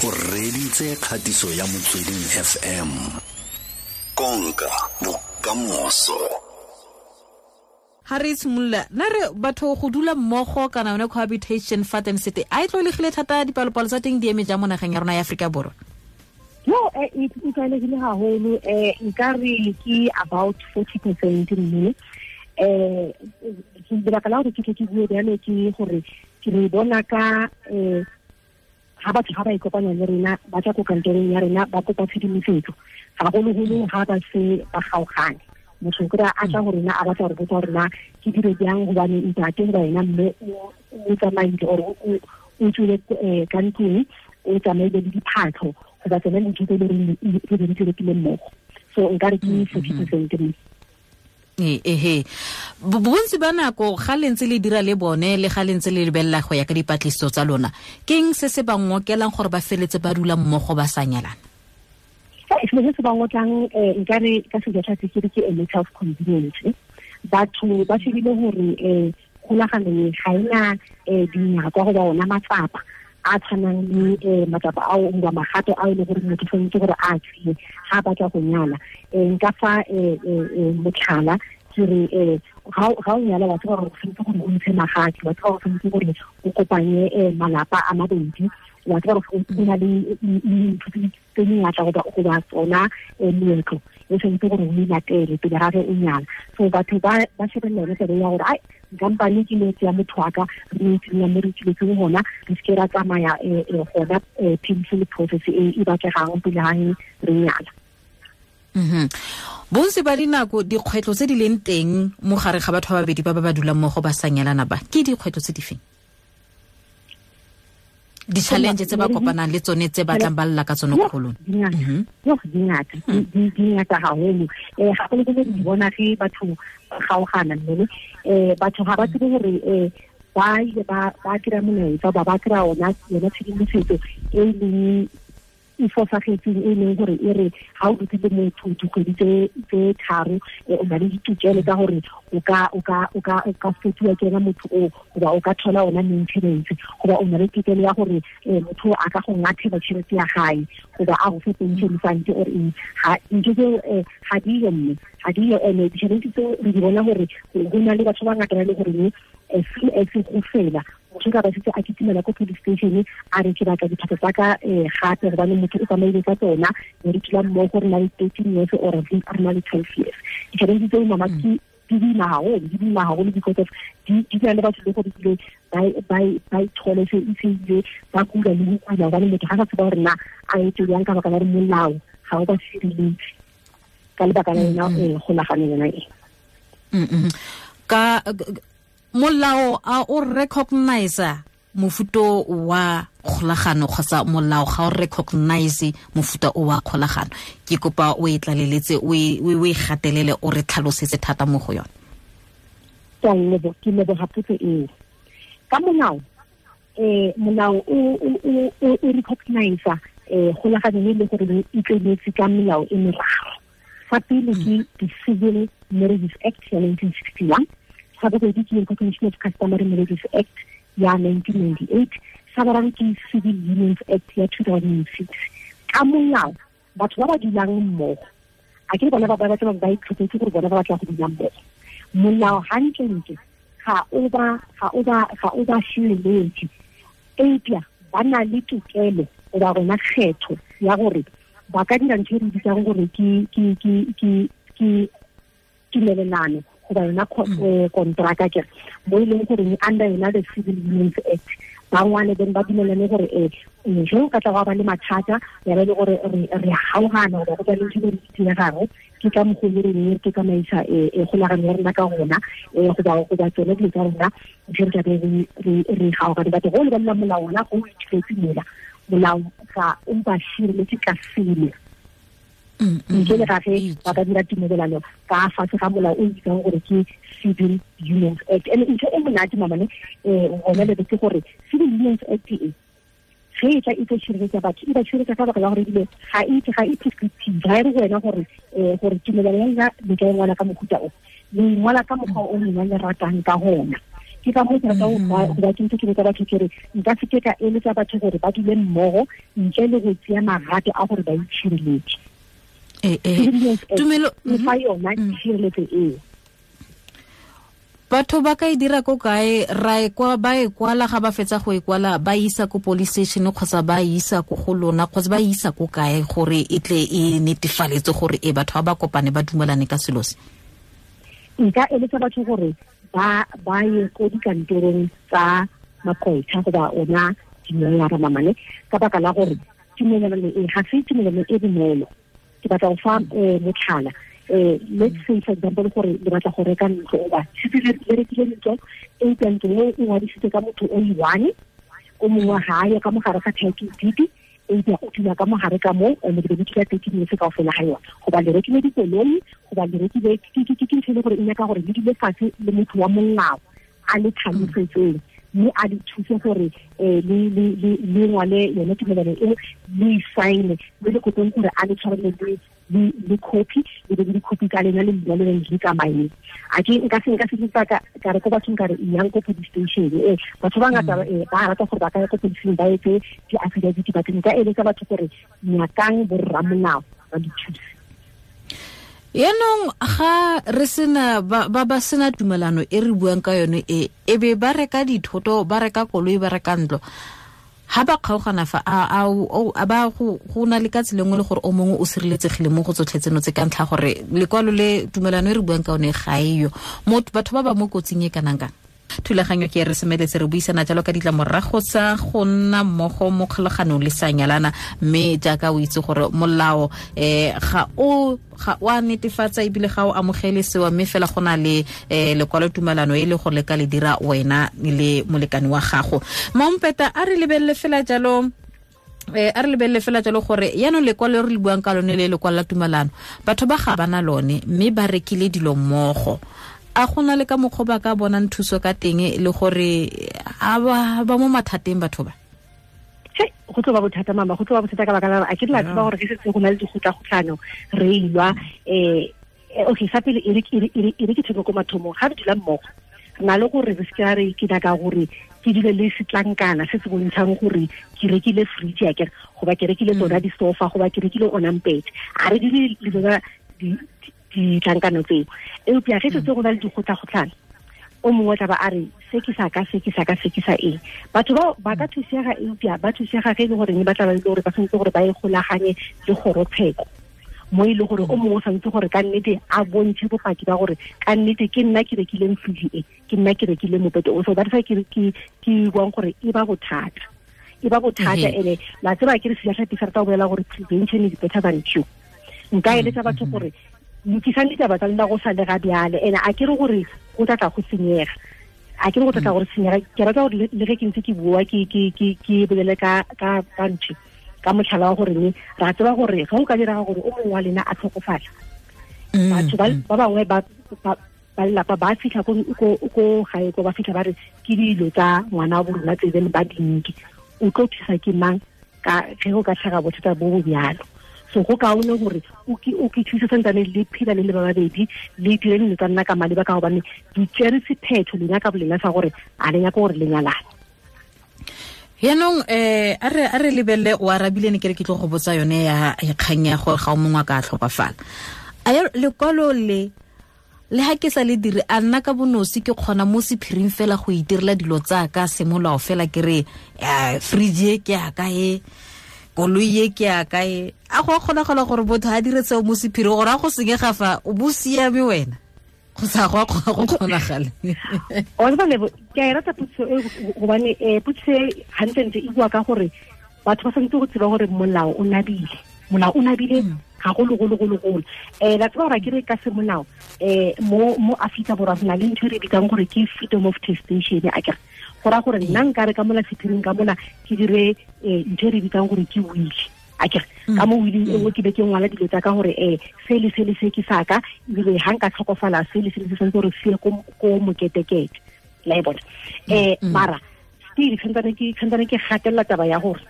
O reditse kgatiso ya Motsweding FM. Konka bokamoso. Ha re simolola na re batho go dula mmogo kana yone cohabitation fa teng sete a e tlwaelegile thata, dipalopalo tsa teng di eme jang mo nageng ya rona ya Aforika Borwa? No, e tlwaelegile haholo. Nka re ke about 40%, mme lebaka la gore ke tle ke bue bjalo ke gore ke re bona ka ga batho ga ba ikopanya le rena, ba tla ko kantorong ya rena, ba kopa tshedimosetso, gagologolo ga ba se ba kgaogane. Motho o kry-a a tla go rena a batla gore botsa gore na ke dire jang, gobane ntate goba ena mme o tsamaile or o tswile ka ntlong, o tsamaile le diphatlho goba tsone dintho tse e le goreng re be re di rekile mmogo. So nka re ke 40%, mme Ehe, bontsi ba nako ga le ntse le dira le bone le ga le ntse le lebelela go ya ka dipatlisiso tsa lona, ke eng se se ba ngokelang gore ba feletse ba dula mmogo ba sa nyalana? Selo se se ba ngotlang, nka re ka sejatlhapi ke re ke a matter of convenience. Batho ba shebile gore kgolagano e ga ena dinyakwa goba ona matsapa a tshwanang le matsapa ao goba magato a e le gore motho tshwanetse gore a tseye ga a batla go nyala. Nka fa motlhala ke re ga o nyala, wa tseba gore o tshwanetse gore o ntshe magadi, wa tseba gore o tshwanetse gore o kopanye malapa a mabedi, wa tseba gore o na le dintho tse dingata goba tsona meetlo e tshwanetse gore o e latele pele ga ge o nyala. So batho ba shebelela yone taba ya gore ai, nkampane ke no tseya motho wa ka, re no tsenya mo re tsweletseng gona, re seke ra tsamaya gona painful process e e batlegang pele ga re nyala. Bontsi ba dinako dikgwetlho tse di leng teng mo gare ga batho ba babedi ba ba dulang mmogo ba sa nyalana ba, ke dikgwetlho tse di feng? Di-challenge tse ba kopanang le tsone tse ba tlang ba lla ka tsone ko go lona? Yo, di ngata. Di ngata haholo. Gagolo-golo di bona ge batho ba kgaogana, mme batho ga ba tsebe gore ba ile ba kry-a molaetsa ba kry-a yona tshedimosetso e leng e fosagetseng, e leng gore e re ga o dutse le motho dikgwedi tse 3, o na le ditokelo tsa gore o ka fetoa ke ena motho o, goba o ka thola ona maintenance, goba o na le tokelo ya gore motho a ka go ngathela tšhelete ya gae, goba a go fe pension fund or eng. Ga ntho tseo ga diyo, mme ga diyo. And ditšhelete tseo re di bona gore go na le batho ba ngata ba e le goreng as soon as go fela, motho ka ba setse a kitimela ko police station a re ke batla diphatsa tsa ka gape, gobane motho o tsamaile ka tsona, ne re dula mmogo re na le 13 years or re na le 12 years. Ditšhelete tseo, mama, ke di boima haholo, di boima haholo because of di na le batho le gore ebile ba ithole se e se ile ba kula le go kula, gobane motho ga sa tseba gore na a etse jang ka baka la gore molao ga o ba sireletse ka lebaka la yona kgolagano yona e. Ka molao a o recognize mofuta wa kgolagano kgotsa molao ga o recognize mofuta o wa kgolagano? Ke kopa o e tlaleletse, o e gatelele, o re tlhalosetse thata mo go yone. Ke a leboga, ke leboga potso eo. Ka molao, molao o recognize kgolagano e le gore e tleletse ka melao e meraro. Fa pele ke the Civil Marriages Act ya 1961, sa bobedi ke Recognition of Customary Marriages Act ya 1998, sa boraro ke Civil Unions Act ya 2006. Ka molao, batho ba ba dulang mmogo, a ke bona ba ba batla ba itlhophetse gore bona ba batla go dula mmogo, molao hantlentle ga o ba sireletse, eupša ba na le tokelo goba gona kgetho ya gore ba ka dira ntho e re bitsang gore ke tumelelano goba yona kontraka, ke mo e leng gore under yona the Civil Unions Act ba ngwale, then ba dumelane gore ge o ka tla go ba le mathata ya ba e le gore re kgaogana goba go ba le ntho e re diregang, ke ka mokgwa o re re ke tsamaisa kgolagano ya rena ka gona, goba tsone dilo tsa rona ge re tlabe re kgaogane. Batho go lebelela molao ona go o ithuletse mola, molao ga o ba sireletse ka selo ntle le ga ge ba ka dira tumelelano ka fatshe ga molao o bitsang gore ke Civil Unions Act. And ntho e monate, mamane, gona lebe ke gore Civil Unions Act e ge e tla e tlo tshireletsa batho, e ba tshireletsa ka baka la gore ebile ga e prescriptive, ga e re wena gore tumelelo ya lena le ka e ngwala ka mohuta o, le ngwala ka mokgwa o lena le ratang ka gona. Ke ka moo ke rata go ba ke ntse ke botsa batho ke re nka se ke ka eletsa batho gore ba dule mmogo ntle le go tseya magato a gore ba itshireletse. Tumelo e fa yona tshireletso eo. Batho ba ka e dira ko kae? Ra e kwa ba e kwala, ga ba fetsa go e kwala ba isa ko police station kgotsa ba isa ko go lona kgotsa ba isa ko kae gore e tle e netefaletse gore e batho ba ba kopane ba dumelane ka selo se? Nka eletsa batho gore ba ye ko dikantorong tsa maqwetha goba ona diloyara mamane, ka baka la gore tumelano e ga se tumelano e bonolo. Ke batla go fa motlhala. Let's say for example gore le batla go reka ntlo, oba setse le rekile ntlo, eupša ntlo eo e ngwadisitswe ka motho o i-one, o mongwe ga a yo ka mogare ga title deed, eupša o dula ka mogare ka moo, and le be le dula 13 years kaofela ga yona. Goba le rekile dikoloi, goba le rekile ke ntho e le gore e nyaka gore le dule fatshe le motho wa molao a le tlhalosetseng, mme a le thuse gore le ngwale yone tumelano eo, le e sign-e, mme le kopeng gore a le tshwarele le copy, le be le di-copy tsa lena le lena le le tsamaye. A ke nka se ka re ko bathong ka re yang ko police station. Batho ba ngata ba rata gore ba ka ya ko police station ba etse di-affidavit, but nka eletsa batho gore nyakang borramolao ba di thuse. Yaanong ga re sena ba sena tumelano e re buang ka yone e be ba reka dithoto, ba reka koloi, ba reka ntlo, ha ba kgaogana fa a ba go na le ka tsela nngwe le gore o mongwe o sireletsegile mo go tsotlhe tseno tse ka ntlha gore lekwalo le tumelano e re buang ka yone ga eyo. Batho ba ba mo kotsing e kanang kang? Thulaganyo ke re semeletse re buisana jalo ka ditlamorago tsa go nna mmogo mo kgolaganong le sa nyalana, mme jaaka o itse gore molao ga o a netefatsa ebile ga o amogele sewa, mme fela go na le lekwalo tumelano e le gore le ka le dira wena le molekane wa gago. Mampeta, a re lebelele fela jalo gore yaanong lekwalo re le buang ka lone le lekwalo la tumelano, batho ba ga bana lone mme ba rekile dilo mmogo. A gona le ka mokgwa ba ka bonang thuso ka teng le gore a ba mo mathateng batho ba? Go tlo ba bothata mama, go tlo ba bothata ka baka la a ke la tseba gore ke setse go na le dikgotlagotlano re ilwa. Okay, sa pele e re ke theko ko mathomong ga re dula mmogo, re na le gore re se ke re ke nyaka gore ke dule le setlankana se se bontshang gore ke rekile fridge ya kere, goba ke rekile tsona di-sofa, goba ke rekile ona mpete. A re dule le tsona ditlankano tseo. Eupša ge setse go na le dikgotlagotlano, o mongwe tla ba a re se ke sa ka, se ke sa ka, se ke sa eng. Batho bao ba ka thusega, eupša ba thusega ge e le goreng ba tla ba le gore ba tshwanetse gore ba e golaganye le kgorotsheko, mo e le gore o mongwe o tshwanetse gore ka nnete a bontshe bopaki ba gore ka nnete ke nna ke rekileng fridge e, ke nna ke rekileng mopete o. So that's why ke buang gore e ba bothata, e ba bothata. Ene la tseba ke re sejatlhapi sa rata go bolela gore prevention is better than cure. Nka eletsa batho gore lokisang ditaba tsa lena go sa le ga bjale, ene a ke re gore go tla tla go senyega, a ke re go tla tla gore senyega. Ke rata gore le ge ke ntse ke bua ke bolele ka ntho ka motlhala wa gore ne ra tseba gore ga o ka direga gore o mongwe wa lena a tlhokofala, batho ba bangwe ba lelapa ba fitlha ko gae ko ba fitlha ba re ke dilo tsa ngwana wa bo rona tse bene ba dinke, o tlo thusa ke mang ka ge go ka tlhaga bothata bo bo bjalo. So go kaone gore o ke thuse santsane le phela le le ba babedi, le dire dilo tsa nna ka maleba, ka gobane di tsere sephetho lena ka bolena sa gore a le nyaka gore le nyalane. Yaanong a re lebelele o arabile ne ke re ke tlo go botsa yone ya kgang ya gore ga o mongwe a ka tlhokafala. A lekwalo le ha ke sa le dire, a nna ka bonosi ke kgona mo sephiring fela go itirela dilo tsa ka semolao fela, ke re fridge e ke ya ka e, koloi e ke ya ka e. A go kgonagala gore motho a dire seo mo sephiring gore a go senyega fa o bo siame wena, go sa go go kgonagale? O tseba Lebo, ke a e rata potso e, gobane potso e gantlentle e bua ka gore batho ba tshwanetse go tseba gore molao o nabile, molao o nabile gagolo-golo-golo-golo. La tseba gore ke re ka semolao mo Afrika Borwa re na le ntho e re bitsang gore ke freedom of testation. A kere go raya gore nna nka re ka mola sephiring ka mola ke dire ntho e re bitsang gore ke will. A kere ka mo willing e nngwe ke be ke ngwala dilo tsa ka gore se le se le se ke sa ka, ebile ga nka tlhokofala se le se le se santse gore se ye ko moketekete, la e bona. Mara still santsane ke gatelela taba ya gore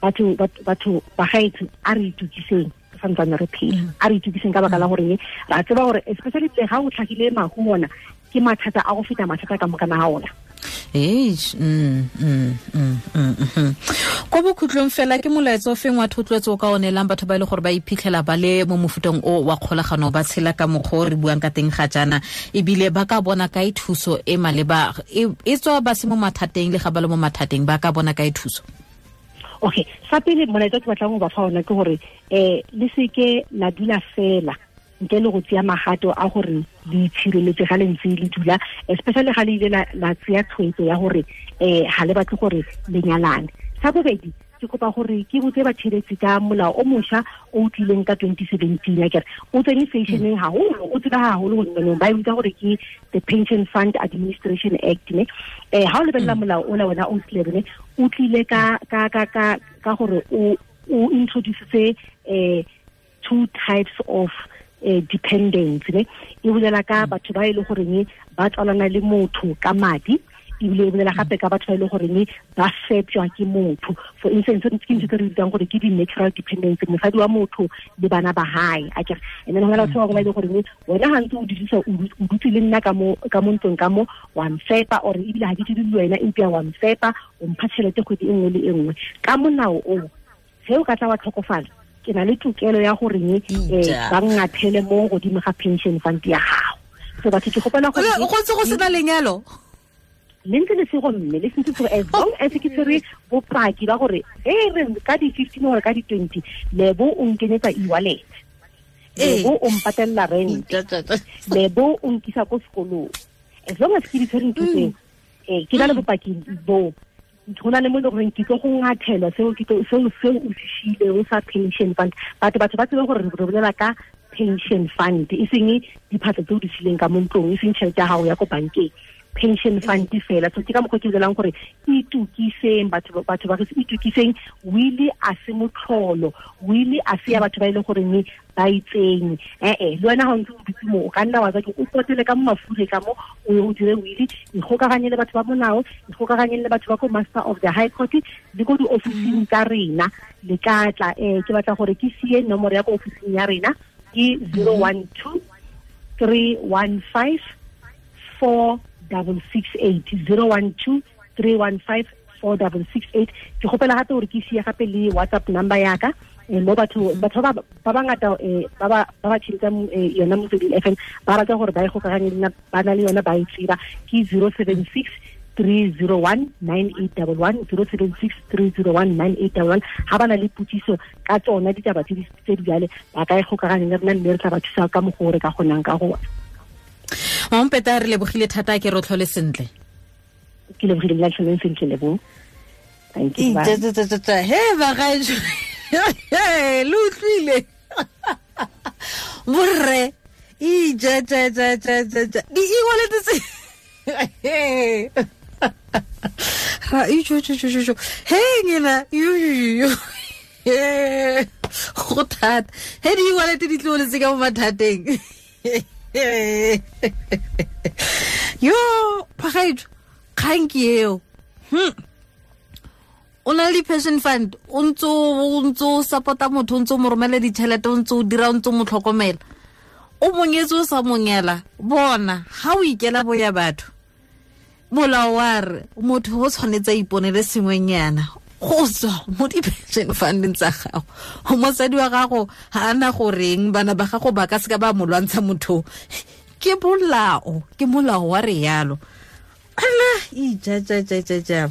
batho ba gaetsho a re itukiseng, santsane re phela. A re itukiseng ka baka la gore ra tseba gore especially le ga o tlhagile mahu ona ke mathata a go feta mathata ka mokana ga ona. Ko bokhutlong fela ke molaetsa o feng wa thotloetso o ka o neelang batho ba e le gore ba iphitlhela ba le mo mofuteng o wa kgolagano, ba tshela ka mokgwa o re buang ka teng ga jaana, ebile ba ka bona kae thuso e maleba, e tswa ba se mo mathateng le ga ba le mo mathateng, ba ka bona kae thuso? Okay, sa pele molaetsa ke batlang go ba fa ona ke gore le seke la dula fela ntle le go tseya magato a gore le itshireletse ga le ntse le dula, especially ga le ile la tseya tshwetso ya gore ga le batle gore le nyalane. Sa bobedi, ke kopa gore ke botse batshegetsi ka molao o mošwa o tlileng ka 2017, akere o tsene fashion-eng haholo, o tseba haholo gonne ba e bitsa gore ke the Pension Fund Administration Act, ne. Ha o lebelela molao ola wena o tlile, o tlile ka ka ka ka ka gore o introduce two types of dependence, ne. E bolela ka batho ba e le goreng ba tswalana le motho ka madi, ebile e bolela gape ka batho ba e le goreng ba fepjwa ke motho. For instance, ke ntho tse re bitsang gore ke di-natural dependence, mosadi wa motho le bana ba hae, akere. And then ho na le batho ba bangwe ba e le goreng wena ga ntse o dirisa, o dutse le nna ka mo ntlong ka mo, wa mfepa, or ebile ga ke dire le wena empa wa mfepa, o mpha tšhelete kgwedi e nngwe le e nngwe. Ka molao o, ge o ka tla wa tlhokofala, ke na le tokelo ya gore ba ngathele mo godimo ga pension fund ya gago. So batho ke gopela gore go ntse go sena lenyalo le ntse le sego, mme le sentse gore as long as ke tshwere bopaki ba gore re ka di-15 or ka di-20 lebo o nkenyetsa e-wallet, lebo o mpatella rent, lebo o nkisa ko sekolong, as long as ke di tshwere ntho tseo, ke na le bopaki bo, go na le mo e leng gore ke tlo go ngathelwa seo o se šiileng sa pension fund. Batho ba tsebe gore re bolela ka pension fund, e seng diphatlo tse o di sileng ka mo ntlong, e seng tšhelete ya gago ya ko bankeng, pension fund fela. So ke ka mokgwa ke bolelang gore itukiseng, batho ba re itukiseng. Wili a se motlholo, wili a se ya batho ba e leng goreng ba itseng. Le wena ga o ntse o dutse mo, o ka nna wa tsa o potele ka mo mafure ka mo, o ye o dire wili, ikgokaganye le batho ba molao, ikgokaganye le batho ba ko Master of the High Court le ko diofising tsa rena. Le ka tla, ke batla gore ke sie nomoro ya ko ofising ya rena ke 012 315 4668, 012 315 4668. Ke gopela gape gore ke sie gape le WhatsApp number ya ka, mo batho ba bangata ba ba tshintsa yona Motsweding FM ba rata gore ba e gokaganye le ba na le yona ba e tseba, ke 076 301 9811, 076 301 9811. Ha ba na le potsiso ka tsona ditaba tse di jale, ba ka e gokaganya le rena mme re tla ba thusa ka mokgwa o re ka kgonang ka gona. Mampeta, re lebogile thata, ke rotlhole sentle. Ke lebogile le tlholeng sentle, lebo. Thank you. He bagaetsho, le utlwile borre, ija ja ja ja ja di e-wallet tse ra ijo jo jo jo he ngena yo go thata he di e-wallet di tloletse ka mo mathateng. Yo phagaetso, kgang ke eo. O na le pension fund, o ntse o support-a motho, o ntse o mo romela ditšhelete, o ntse o dira, o ntse o mo tlhokomela, o monyetse o sa monyela. Bona ga o ikela boya batho, molao wa re motho o tshwanetse a iponele sengwenyana go tswa mo di-pension funding tsa gago. Mosadi wa gago ga ana goreng, bana ba gago ba ka seka ba mo lwantsha motho. Ke molao, ke molao wa re yalo. Ala ija ja ja ja ja.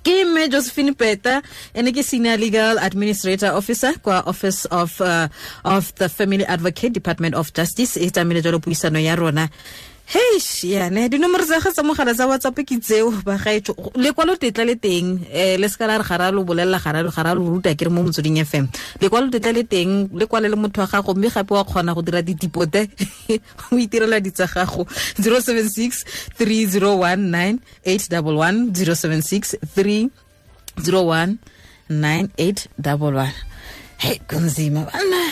Ke mme Josephine Peta, ene ke Senior Legal Administrator Officer kwa Office of the Family Advocate, Department of Justice. E tsamaile jalo puisano ya rona. Heish, yane dinomoro tsa gagwe tsa mogala tsa WhatsApp ke tseo bagaetsho. Lekwalo tetla le teng, le se ka la re ga ra lo bolelela, ga ra lo ruta ke re mo Motsweding FM. Lekwalo tetla le teng, le kwale le motho wa gago, mme gape wa kgona go dira ditipote o itirela ditsa gago. 076 301 9811, 076 301 9811. Hey, kunzima bana.